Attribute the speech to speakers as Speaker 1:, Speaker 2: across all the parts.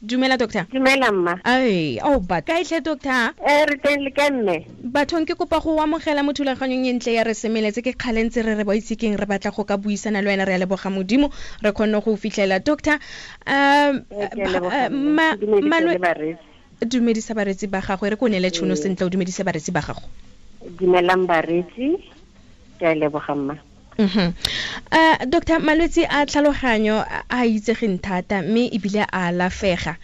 Speaker 1: Dumela doctor.
Speaker 2: Dumela mma.
Speaker 1: Ai, oh ba kae tlhe doctor?
Speaker 2: Re teng le kae mme?
Speaker 1: Bathong ke kopa go amogela mo thulaganyong e ntle ya re semeletse ke kgale ntse re re ba itse keng re batla go ka buisana le wena re a leboga Modimo re kgonne go fitlhela doctor. Dumedisa bareetsi ba gago re ko neele tšhono sentle o dumedise bareetsi ba gago.
Speaker 2: Dumelang bareetsi, ke a leboga mma.
Speaker 1: Doctor, malwetse a tlhaloganyo a itsegeng thata mme ebile a alafega.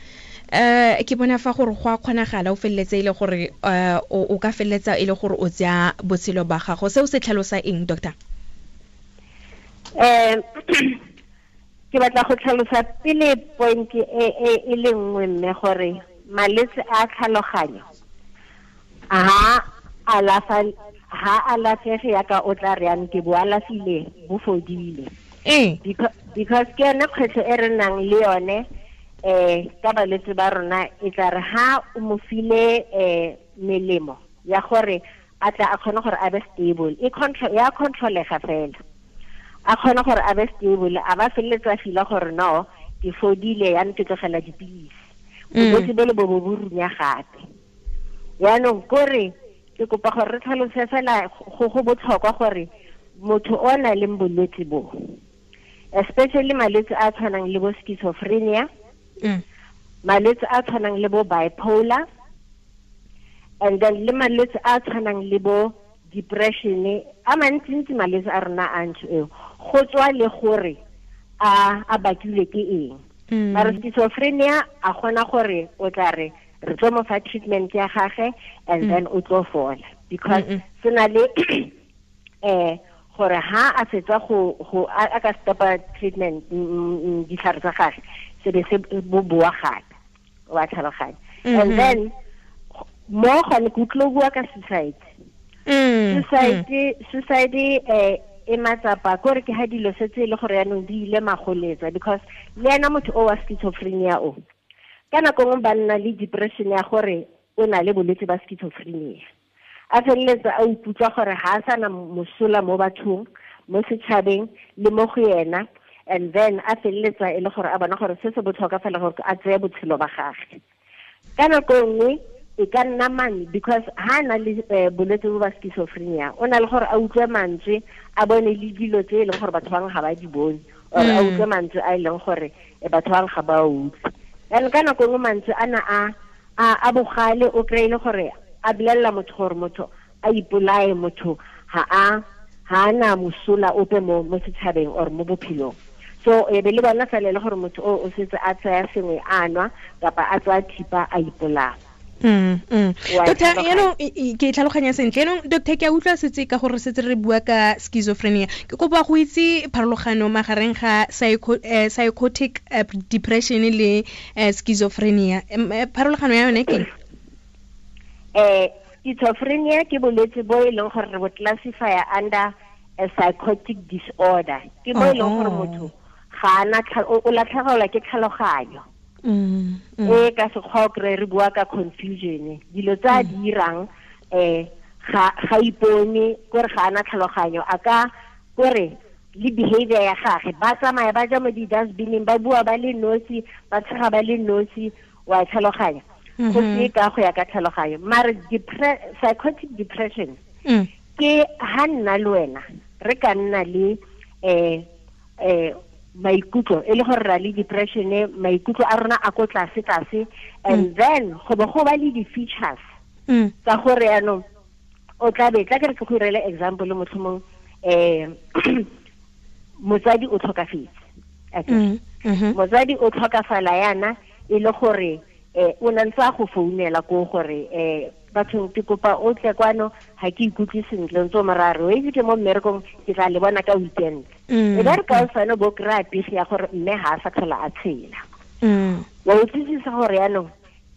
Speaker 1: Ke bona fa gore go a kgonagala o feleletse e le gore o ka feleletsa e le gore o tsaya botshelo ba gago. Seo se tlhalosa eng, doctor?
Speaker 2: Ke batla go tlhalosa pele point e le nngwe mme gore malwetse a tlhaloganyo ha alafa ha alafege yaka o tla re yang ke bo alafile bo fodile. Because ke yone kgwetlho e re nang le yone ka balwetse ba rona e tla re ha o mo file melemo ya gore a tla a kgone gore a be stable e control ya controlega fela a kgone gore a be stable a ba feleletsa fila gore no ke fodile ya ke tlogela dipilisi bolwetse bo le bo bo runya gape. Yaanong kore ke kopa gore re tlhalose fela go botlhokwa gore motho o na leng bolwetse bo, especially malwetse a tshwanang le bo schizophrenia, malwetse a tshwanang le bo bipolar, and then le malwetse a tshwanang le bo depression, a mantsintsi malwetse a rona a ntho eo go tswa le gore a bakilwe ke eng. Mara schizophrenia a gona gore o tla re re tlo mo fa treatment ya gagwe and then o tlo fola because se na le gore ha a fetsa go a ka stopa treatment ditlhare tsa gagwe se be se bo boa gape wa tlhaloganya. And then mo gone ke utlwe bua ka suicide. Suicide e matsapa kore ke ha dilo setse le gore yaanong di ile magoletsa because le ena motho o wa schizophrenia o ka nako nngwe ba nna le depression ya gore o na le bolwetse ba schizophrenia a feleletsa a ikutlwa gore ha a sana mosola mo bathong mo setšhabeng le mo go yena, and then a feleletsa e le gore a bona gore se se botlhokwa fela gore a tseye botshelo ba gagwe. Ka nako nngwe e ka nna mane because ha na le bolwetse bo ba schizophrenia o na le gore a utlwe mantswe a bone le dilo tse e leng gore batho bangwe ga ba di bone or a utlwe mantswe a e leng gore batho bangwe ga ba utlwe. And ka nako nngwe mantswe ana a bogale o kry-ile gore a bolelela motho gore motho a ipolaye, motho ha a na mosola ope mo setšhabeng or mo bophelong. So e be le bona fela le gore motho o setse a tsaya sengwe a nwa kapa a tsaya thipa a ipolaya.
Speaker 1: Doctor, yaanong ke tlhaloganya sentle. Yaanong doctor, ke a utlwa setse ka gore setse re bua ka schizophrenia. Ke kopa go itse pharologano magareng ga psychotic depression le schizophrenia. Pharologano ya yone ke
Speaker 2: Schizophrenia ke bolwetse bo e leng gore re bo classify under a psychotic disorder. Ke bo e leng gore motho ga ana o latlhegelwa ke tlhaloganyo. E ka sekgwa o kry re bua ka confusion dilo tse a di dirang ga ipone kore ga ana tlhaloganyo a ka kore le behavior ya gagwe ba tsamaya ba ja mo di-dustbineng ba bua ba le nosi ba tshega ba le nosi wa tlhaloganya go se ka go ya ka tlhaloganyo. Mare psychotic depression ke ha nna le wena re ka nna le maikutlo e le gore ra le depression maikutlo a rona a ko tlase tlase and then go bo go ba le di-features tsa gore yaanong o tla be tla ke re ke go irele example motlhomong motsadi o tlhokafetse. Motsadi o tlhokafala yana e le gore o na ntse a go founela ko gore bathong ke kopa o tle kwano ga ke ikutlwe sentle ntse o morare o itse ke mo mmerekong ke tla le bona ka weekend. E ba re ka osane bo kry-a pegi ya gore mme ga a sa tlhola a tshela. Wa utlwisisa gore yaanong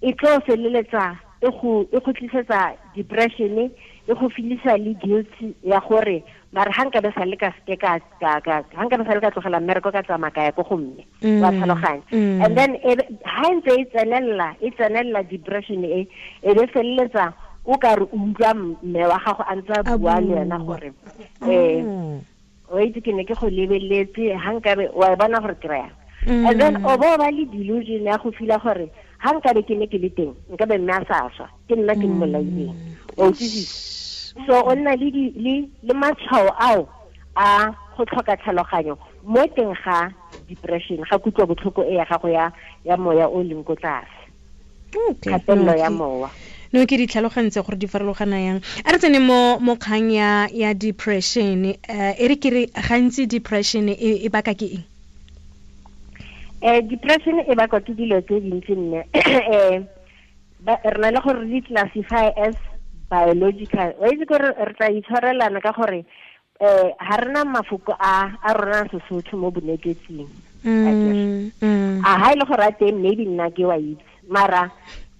Speaker 2: e tlo feleletsa e go tlisetsa depression e go filisa le guilt ya gore mare ga nka be sa le ka seke ka ga nka be sa le ka tlogela mmereko ka tsamaya ka ya ko go mme wa tlhaloganya. And then ha ntse e tsenelela depression e be feleletsa o ka re utlwa mme wa gago a ntse a bua le wena gore o itse ke ne ke go lebeletse ga nkabe wa bona gore kry-a. And then o bo ba le delusion ya go fila gore ha nka be ke ne ke le teng nka be mme a sa swa ke nna ke mmolaileng. O utlwisisa? So o nna le matshwao ao a go tlhoka tlhaloganyo mo teng ga depression, ga kutlwa botlhoko e ya gago ya moya o leng ko tlase. Kgatelelo ya mowa.
Speaker 1: No ke di tlhalogantse gore di farologana yang. A re tsene mo kgang ya depression. E re ke re gantsi depression e baka ke eng?
Speaker 2: Depression e bakwa ke dilo tse dintsi nne. Re na le gore re classify as biological. Wa itse gore re tla itshwarelana ka gore ha rena mafoko a rona Sesotho mo bonetetsing. A ha ile gore a teng maybe nna ke wa itse. Mara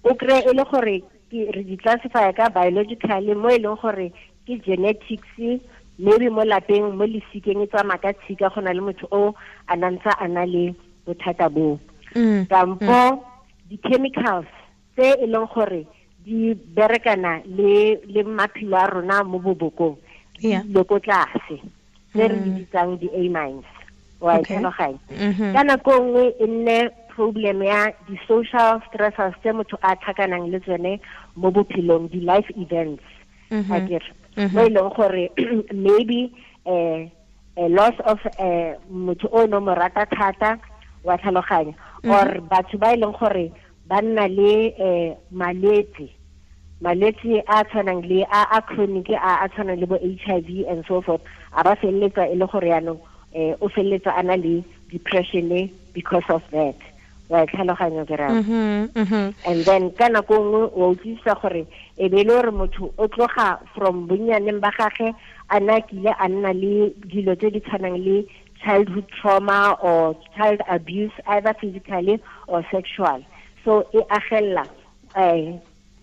Speaker 2: o kry e le gore re di classify ka biologically mo e leng gore ke genetics, maybe mo lapeng mo lesikeng e tsamaya ka tshika go na le motho o a nantsa a na le bothata bo. Kampo di-chemicals tse e leng gore di berekana le maphelo a rona mo bobokong le ko tlase tse re di bitsang di-amines. Wa e tlhaloganya? Ka nako nngwe e nne problem ya di-social stressors tse motho a tlhakanang le tsone mo bophelong, di-life events. Akere mo e leng gore maybe a loss of motho o no mo rata thata, wa tlhaloganya, or batho ba e leng gore ba nna le malwetse a tshwanang le a chronic a tshwanang le bo HIV and so forth, a ba feleletsa e le gore yaanong o feleletsa a na le depression because of that. Wa tlhaloganya ke raya? And then ka nako nngwe wa utlwisisa gore e be le gore motho o tloga from bonnyaneng ba gagwe a na kile a nna le dilo tse di tshwanang le childhood trauma or child abuse, either physically or sexual. So e agella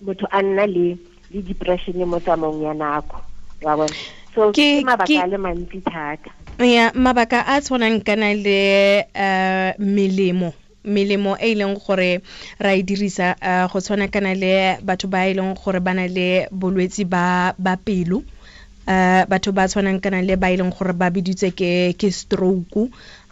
Speaker 2: motho a nna le depression mo tsamaong ya nako. Wa bona? So ke mabaka a le mantsi thata.
Speaker 1: Ya mabaka a tshwanang kana le melemo e leng gore ra e dirisa go tshwana kana le batho ba e leng gore ba na le bolwetsi ba pelo, batho ba tshwanang kana le ba e leng gore ba biditse ke stroke.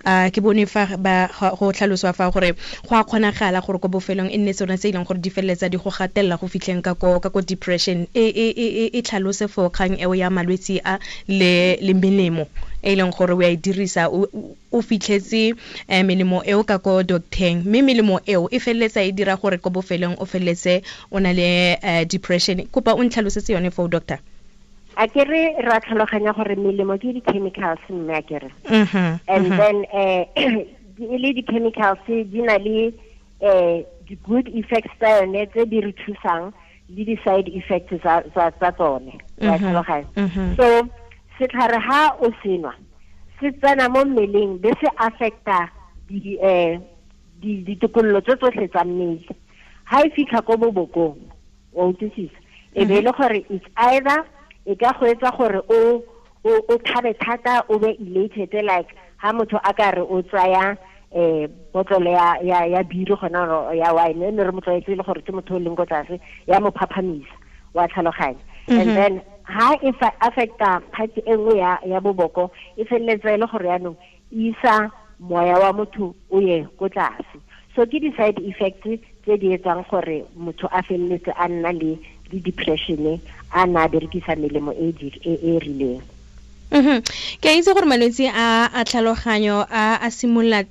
Speaker 1: Ke bone fa ba go tlhaloswa fa gore go a kgonagala gore ko bofelong e nne tsone tse e leng gore di feleletsa di go gatelela go fitlheng ka ko depression. E tlhalose for kgang eo ya malwetsi a le melemo e leng gore o a e dirisa, o fitlhetse melemo eo ka ko docteng, mme melemo eo e feleletsa e dira gore ko bofelong o feleletse o na le depression. Kopa o ntlhalosetse yone foo, doctor.
Speaker 2: A ke re ra tlhaloganya gore melemo ke di-chemicals mme a ke re. And then e le di-chemicals di na le di-good effects tsa yone tse di re thusang le di-side effects tsa tsone. Wa tlhaloganya? So setlhare ha o senwa se tsena mo mmeleng be se affecta ditokololo tse tsotlhe tsa mmele. Ha e fitlha ko bobokong, wa utlwisisa, e be e le gore it's either e ka go etsa gore o thabe thata, o be elated, like ha motho a ka re o tsaya botlolo ya biri gona ya wine, ne re mo tlwaetse le gore ke motho o leng ko tlase, ya mo phaphamisa, wa tlhaloganya. And then ha e affecta part e nngwe ya boboko, e feleletsa e le gore yaanong e isa moya wa motho o ye ko tlase. So ke di-side effects tse di etsang gore motho a feleletse a nna le depression a na berekisa melemo e e rileng.
Speaker 1: Ke a itse gore malwetse a tlhaloganyo a simolola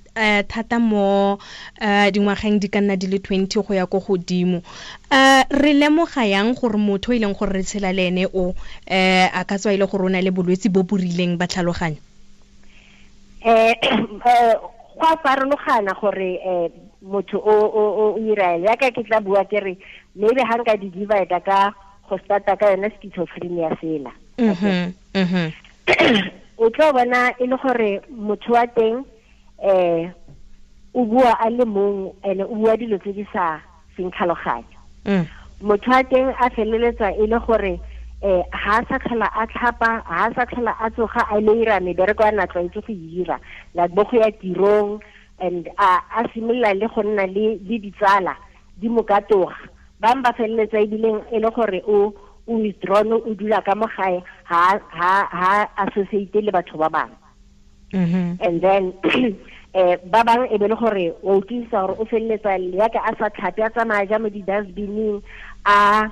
Speaker 1: thata mo dingwageng di ka nna di le 20 go ya ko godimo. Re lemoga yang gore motho e leng gore re tshela le ene o a ka tswa e le gore o na le bolwetse bo bo rileng ba tlhaloganyo?
Speaker 2: Go a farologana gore motho o ira yaka ke tla bua ke re maybe ha nka di divide ka go starta ka yone schizophrenia fela. O tlo bona e le gore motho wa teng o bua a le mong ene o bua dilo tse di sa seng tlhaloganyo. Motho wa teng a feleletsa e le gore ha sa tlhola a tlhapa, ha sa tlhola a tsoga a ile ira mebereko a na tlwaetse go ira, like bo go ya tirong, and a simolola le go nna le ditsala di mo katoga. Bang ba feleletsa ebileng e le gore o withdrawn, o dula ka mo gae, ha associate le batho ba bangwe. And then Ba bang e be le gore o utlwisa gore o feleletsa yaka a sa tlhape a tsamaya ja mo di-dustbining a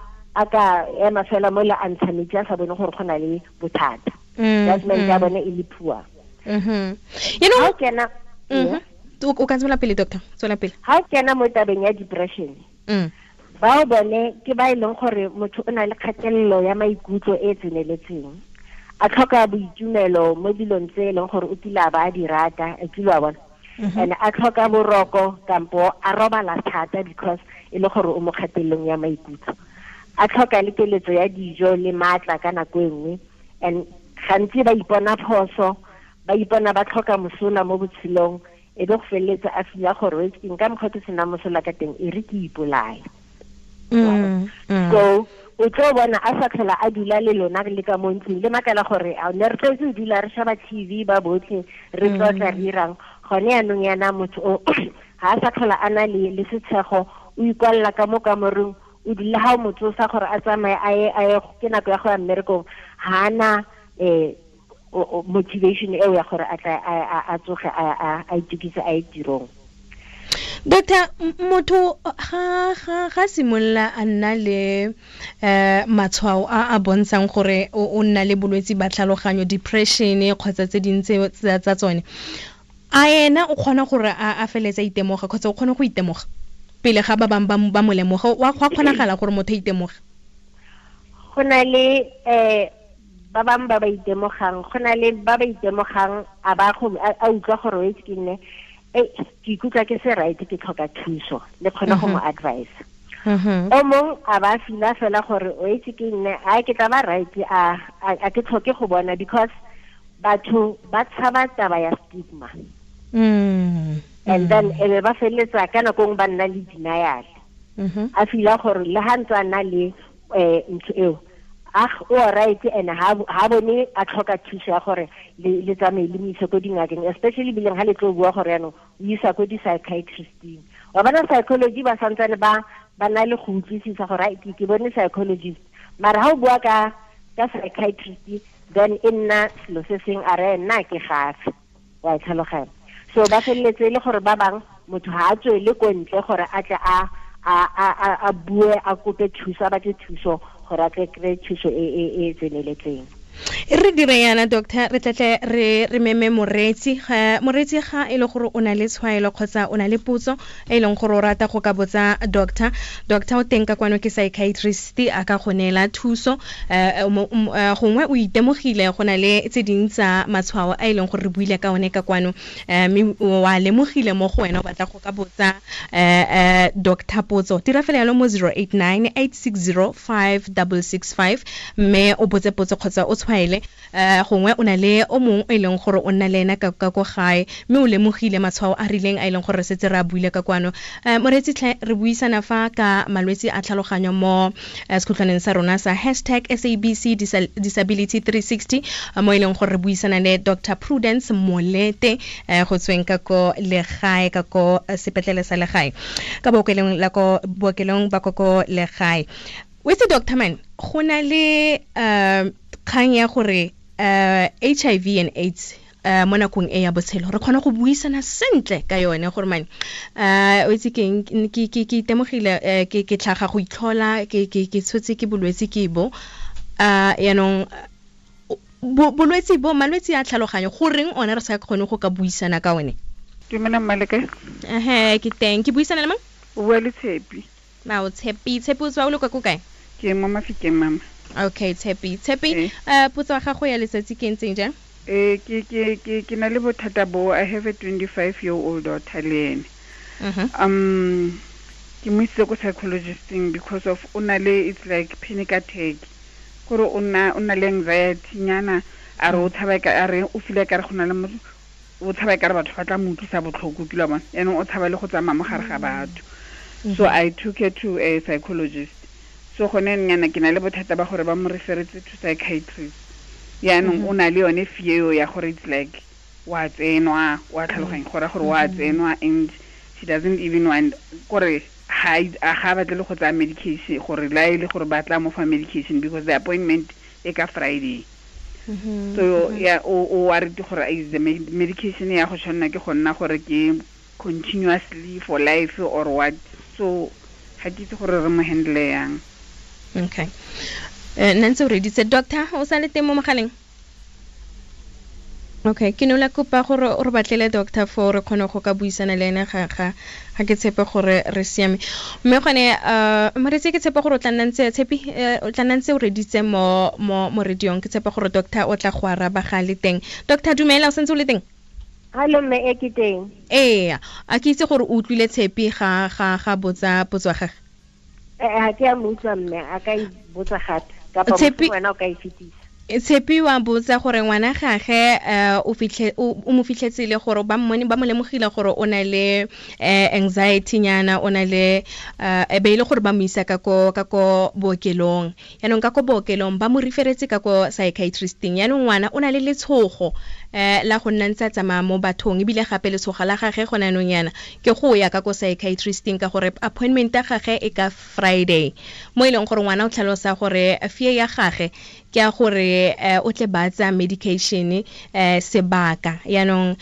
Speaker 2: ka ema fela mo le a ntsha metsi a sa bone gore go na le bothata. Judgment ya bone e le poor.
Speaker 1: You know,
Speaker 2: kena
Speaker 1: o ka tswela pele, doctor, tswela pele.
Speaker 2: Ha o kena mo tabeng ya depression, bao bone ke ba e leng gore motho o na le kgatelelo ya maikutlo e tseneletseng, a tlhoka boitumelo mo dilong tse e leng gore o kile a ba a di rata, a kile a bona, and a tlhoka boroko kampo a robala thata because e le gore o mo kgatelelong ya maikutlo, a tlhoka le keletso ya dijo le maatla ka nako e nngwe, and gantsi ba ipona phoso, ba ipona ba tlhoka mosola mo botshelong, e be go feleletsa a fila gore nka mokgwa ke sena mosola ka teng, e re ke ipolaya. So o tlo bona a sa tlhola a dula le lona le ka mo ntlong, le makala gore a ne re tlwaetse go dula re shaba TV ba botlhe re tlotla re irang, gone yanong yana motho o ha a sa tlhola a na le setshego, o ikwalela ka mo kamoreng, o dula ha o mo tsosa gore a tsamaye a ye ke nako ya go ya mmerekong, ha ana motivation eo ya gore a tla a tsoge a itukise a ye tirong.
Speaker 1: Doctor, motho ga simolola a nna le matshwao a a bontshang gore o nna le bolwetsi ba tlhaloganyo, depression kgotsa tse dintse tsa tsone, a ena o kgona gore a feletse a itemoga kgotsa o kgona go itemoga pele ga ba bangwe ba mo lemoga? Wa kgonagala gore motho a itemoge?
Speaker 2: Go na le ba bangwe ba ba itemogang, go na le ba ba itemogang a ba go a utlwa gore o itse ke nne ke ikutlwa ke se right, ke tlhoka thuso, le kgone go mo advise. O mong a ba fila fela gore o itse ke nne a ke tla ba right, a ke tlhoke go bona, because batho ba tshaba taba ya stigma. And then e be ba feleletsa ka nako nngwe ba nna le denial. A fila gore le ha ntse a na le ntho eo, o right, and ha bone a tlhoka thuso ya gore le tsamaye le mo ise ko dingakeng, especially bileng ha le tlo bua gore yanong o isa ko di-psychiatristing. Wa bona psychology ba santsane ba na le go utlwisisa gore ke bone psychologist, mara ha o bua ka psychiatrist then e nna selo se seng, a re nna ke gafe, wa tlhaloganya. So ba feleletse e le gore ba bang motho ha a tswele ko ntle gore a tle a bue, a kope thuso, a batle thuso gore a tle kry thuso e tseneletseng.
Speaker 1: Re dire yana, doctor, re tlatle re meme moreetsi. Moreetsi ga e le gore o na le tshwaelo kgotsa o na le potso e leng gore o rata go ka botsa doctor, doctor o teng ka kwano ke psychiatrist, a ka go neela thuso. Gongwe o itemogile go na le tse ding tsa matshwao a e leng gore re buile ka one ka kwano, mme wa lemogile mo go wena o batla go ka botsa doctor potso, dira fela yalo mo 089 860 5665 mme o botse potso kgotsa o tshwaele. Gongwe o na le o mongwe e leng gore o nna le ena ka ko gae mme o lemogile matshwao a rileng a e leng gore re setse re a buile ka kwano. Moreetsi tlhe, re buisana fa ka malwetsi a tlhaloganyo mo sekhutlwaneng sa rona sa hashtag SABC Disability 360, mo e leng gore re buisana le Dr. Prudence Molete go tsweng ka ko legae, ka ko sepetlele sa legae, ka bookelong la ko bookelong ba ko legae. O itse, doctor man, go na le kgang ya gore HIV and AIDS mo nakong e ya botshelo re kgona go buisana sentle ka yone gore man, o itse keng, ke itemogile ke tlhaga go itlhola, ke tshotse ke bolwetse ke bo, yaanong bolwetse bo, malwetse a tlhaloganyo, goreng one re sa kgone go ka buisana ka one?
Speaker 3: Dumela mmaleke.
Speaker 1: Ke teng, ke buisana le mang?
Speaker 3: O bua le Tshepi.
Speaker 1: Mao Tshepi, Tshepi o tswa o le kwa ko kae?
Speaker 3: Ke mo Mafikeng, mama.
Speaker 1: Okay, Tshepi. Tshepi, potso ya gago ya letsatsi ke ntseng jang?
Speaker 3: Ke na le bothata bo, I have a 25-year-old daughter le ene. Ke mo isitse ko psychologisting because of o na le, it's like panic attack. Gore o na le anxiety nyana, a re o tshaba ka, a re o feel ka re go na le motho, o tshaba ka re batho ba tla mo utlwisa botlhoko, ke la bona. Yaanong o tshaba le go tsamaya mo gare ga batho. So I took her to a psychologist. So gone nyana ke na le bothata ba gore ba mo referetse to psychiatrist. Yaanong o na le yone fear ya gore it's like wa tsenwa, wa tlhaloganya gore gore wa tsenwa, and she doesn't even want gore ga batle le go tsaya medication, gore la e le gore ba tla mo fa medication because the appointment e ka Friday. So yeah, o worried gore is the medication ya go tshwanna ke go nna gore ke continuously for life or what. So ga ke itse gore re mo handle yang.
Speaker 1: Okay. Nna ntse o reditse doctor, o sa le teng mo mogaleng? Okay, ke ne la kopa gore o re batlele doctor for re kgone go ka buisana le ene ga ke tshepe gore re siame. Mme gone moretsi ke tshepe gore o tla nna ntse tshepi o tla nna ntse o reditse mo mo radiong, ke tshepe gore doctor o tla go araba ga le teng. Doctor dumela, o sentse o le teng?
Speaker 2: Hallo mme, e ke teng.
Speaker 1: Ee, a ke itse gore o utlwile tshepi ga ga ga botsa potso ya gagwe.
Speaker 2: Ga ke a mo utlwa mme, a ka e botsa gape kapa wena o ka e fetisa.
Speaker 1: Tshepi wa botsa gore ngwana gage o mo fitlhetse le gore ba mmone ba mo lemogile gore o na le anxiety nyana, o na le e be ile gore ba mo isa ka ko bookelong. Yaanong ka ko bookelong ba mo referetse ka ko psychiatristing. Yaanong ngwana o na le letshogo la go nna ntse a tsamaya mo bathong, ebile gape letshogo la gage gone anong yana ke go ya ka ko psychiatristing ka gore appointment ya gage e ka Friday, mo e leng gore ngwana o tlhalosa gore fear ya gage ke ya gore o tle ba tsa medication sebaka. Yaanong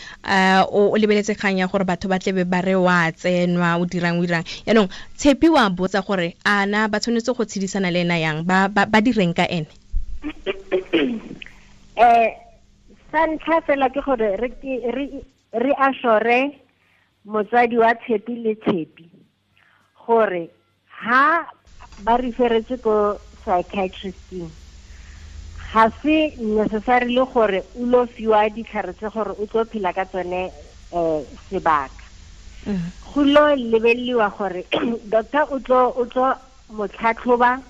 Speaker 1: o lebeletse kgang ya gore batho ba tlebe ba re wa tsenwa o dirang. Yaanong Tshepi wa botsa gore ana ba tshwanetse go tshedisana le ena yang, ba direng ka ene?
Speaker 2: Sa ntlha fela ke gore re assure motsadi wa Tshepi le Tshepi gore ha ba referetse ko psychiatristing ga se necessarily gore o lo fiwa ditlhare tse gore o tlo phela ka tsone sebaka. Go lo lebeleliwa gore doctor o tlo mo tlhatlhoba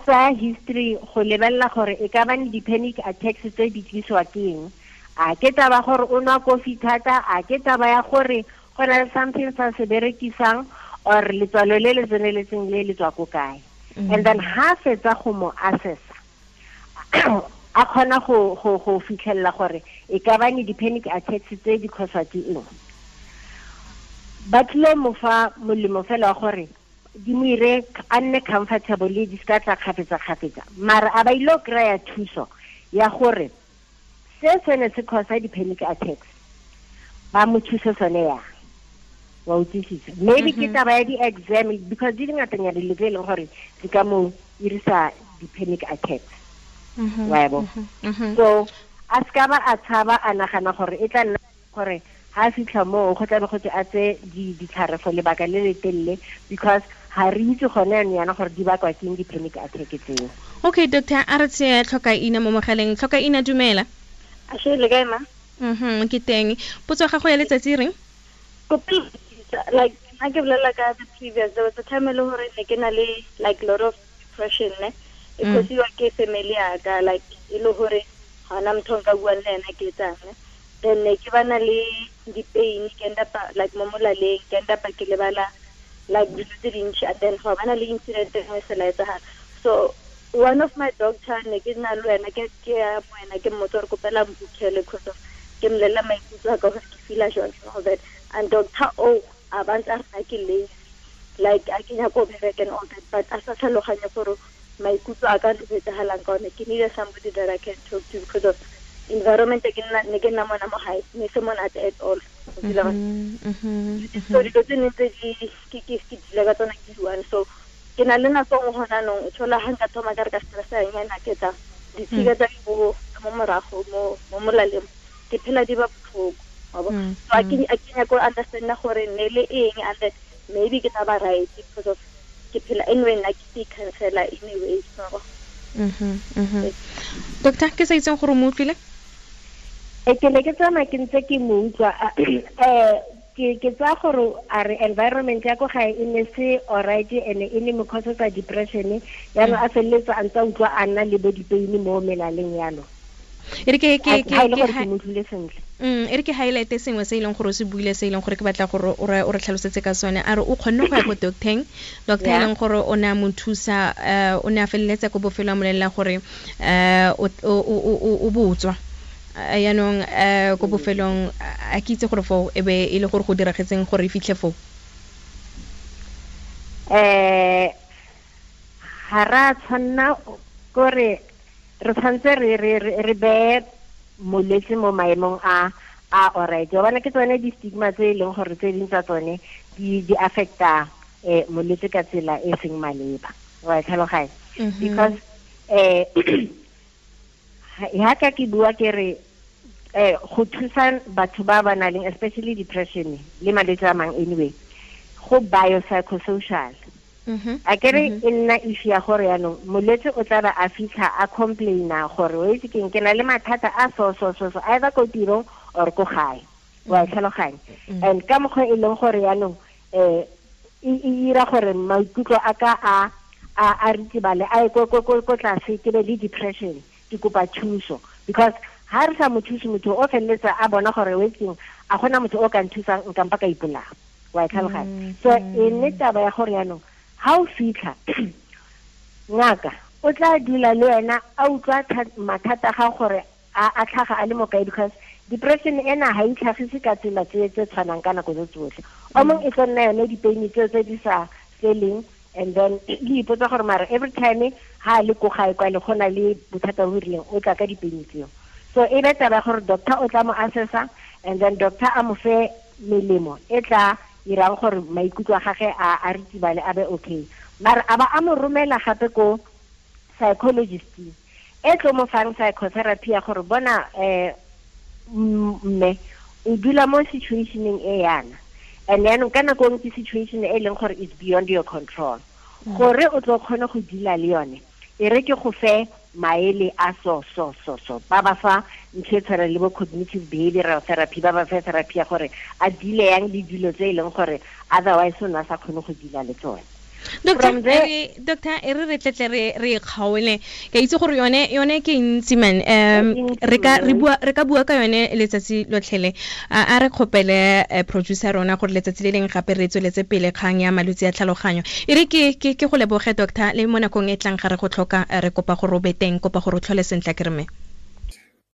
Speaker 2: tsa history go lebelela gore e ka ba ne di-panic attacks tse di tlisiwa ke eng. A ke taba gore o nwa kofi thata, a ke taba ya gore go na le something sa se berekisang or letswalo le le tseneletseng le le tswa ko kae. And then ha fetsa go mo assessa a kgona go fitlhelela gore e ka ba ne di-panic attacks tse di causewa ke eng. Ba tlilo mo fa molemo fela wa gore di mo ire a nne comfortable di ska tla kgafetsa-kgafetsa, mara a ba ile kry-a thuso ya gore se sene se causa di-panic attacks ba mo thuse sone yang, wa utlwisisa. Maybe ke taba ya di-exam because di dingatanyana dilo tse e leng gore di ka mo irisa di-panic attacks. Wa bo. So a ska ba a tshaba a nagana gore e tla nna gore ha fitlha mo go tla be go tse a tse ditlhare for lebaka le le telele because ha re itse gone yana gore di bakwa ke di-panic attack tseo.
Speaker 1: Okay doctor, a re tse tlhoka ina mo mogaleng. Tlhoka ina, dumela.
Speaker 4: A she le kae ma?
Speaker 1: Ke teng. Potso ya gago ya letsatsi reng?
Speaker 4: Like nna ke bolela ka the previous, there was a time e le gore ne ke na le like lot of depression ne. E causiwa ke family ya ka, like e le gore ga ona motho nka buang le ena ke etsang. Then ne ke bana le di-pain, ke end up like mo molaleng, ke end up ke lebala like dilo tse dintsi, and then go bana le incident e nngwe se la etsagala. So one of my doctor ne ke na le wena ke ya mo wena ke mmotsa gore kopela mbukhele because of ke mmolelela maikutlo a ka gore ke feela jwang and all that. And doctor o a ba ntse a re ke lazy, like a ke nyaka go bereka and all that, but a sa tlhaloganye gore maikutlo a ka le etsagalang ka one. Ke need somebody that I can talk to because of environment ke nna ne ke nna mona mo gae ne se monate at all. So dilo tse ne tse di ke dila ka tsona ke one. So ke na le nako nngwe gona anong o thola ga nka thoma ka re ka stressa nyana ke tsa ditshika tsa mo morago mo molaleng ke phela di ba botlhoko. So a ke nyako understand gore ne le eng, and then maybe ke tla ba right because of ke phela anyway nna ke cancela anyway.
Speaker 1: Doctor, ke sa itseng gore o mo utlwile?
Speaker 2: Ke ne ke tsamaya ke ntse ke mo utlwa. Ke tsaya gore a re environment ya ko gae e ne se alright ene e ne mo causetsa depression, yaanong a feleletsa a ntse a utlwa a nna le bo dipain mo melaleng yalo.
Speaker 1: E re ke
Speaker 2: e
Speaker 1: re ke highlight sengwe se e leng gore o se buile, se e leng gore ke batla gore o re tlhalosetse ka sone. A re o kgonne go ya ko docteng, doctor e leng gore o ne a mo thusa, o ne a feleletsa ko bofelo a molelela gore o botswa. Yaanong ko bofelong a ke itse gore foo e be e le gore go diragetseng gore e fitlhe foo.
Speaker 2: Ga ra tshwanna kore Re tshwanetse re beye molwetse mo maemong a alright. Wa bona ke tsone di-stigma tse e leng gore tse ding tsa tsone di affecta molwetse ka tsela e seng maleba. Wa tlhaloganya? Because ha ka ke bua ke re go thusa batho ba ba nang especially depression le malwetse a mang anyway, go biopsychosocial. A ke re e nna issue ya gore yaanong molwetse o tla ba a fitlha a complaina gore o itse keng ke na le mathata a so so so so either ko tirong or ko gae. Wa tlhaloganya? And ka mokgwa e leng gore yaanong e ira gore maikutlo a ka a ritibale a ye ko tlase, ke be le depression, ke kopa thuso. Because ha re sa mo thuse motho o feleletsa a bona gore o etseng a gona motho o ka nthusang nka mpa ka ipolaya. Wa tlhaloganya? So e nne taba ya gore yaanong ha o fitlha ngaka o tla dula le wena a utlwa mathata ga gore a tlhaga a le mo kae, because depression ena ha e tlhagise ka tsela tse tshwanang ka nako tse tsotlhe. O mongwe e tlo nna yone dipain tseo tse di sa feleng, and then le ipotsa gore mara every time ha le ko gae kwa le gona le bothata bo rileng o tla ka dipain tseo. So e be taba ya gore doctor o tla mo assessa, and then doctor a mo fe melemo e tla irang gore maikutlo a gagwe a ritibale a be okay. Mara a ba a mo romela gape ko psychologist e tlo mo fang psychotherapy ya gore bona mme o dula mo situationeng e yana, and then ka nako nngwe ke situation e leng gore is beyond your control. Gore o tlo kgone go dula le yone, e re ke go fe maele a so so so so ba ba fa ntho e tshwana le bo cognitive behavioral therapy, ba ba fe therapy ya gore a dile yang le dilo tse e leng gore otherwise o ne a sa kgone go dila le tsone.
Speaker 1: Doctor, e re tletle re kgaole. Ke itse gore yone ke ntsi man. Re ka bua ka yone letsatsi lotlhele. A re kgopele producer rona gore letsatsi le leng gape re tsweletse pele kgang ya malwetse a tlhaloganyo. E re ke go leboge doctor, le mo nakong e tlang ga re go tlhoka re kopa gore o be teng, kopa gore o tlhole sentle ke re me.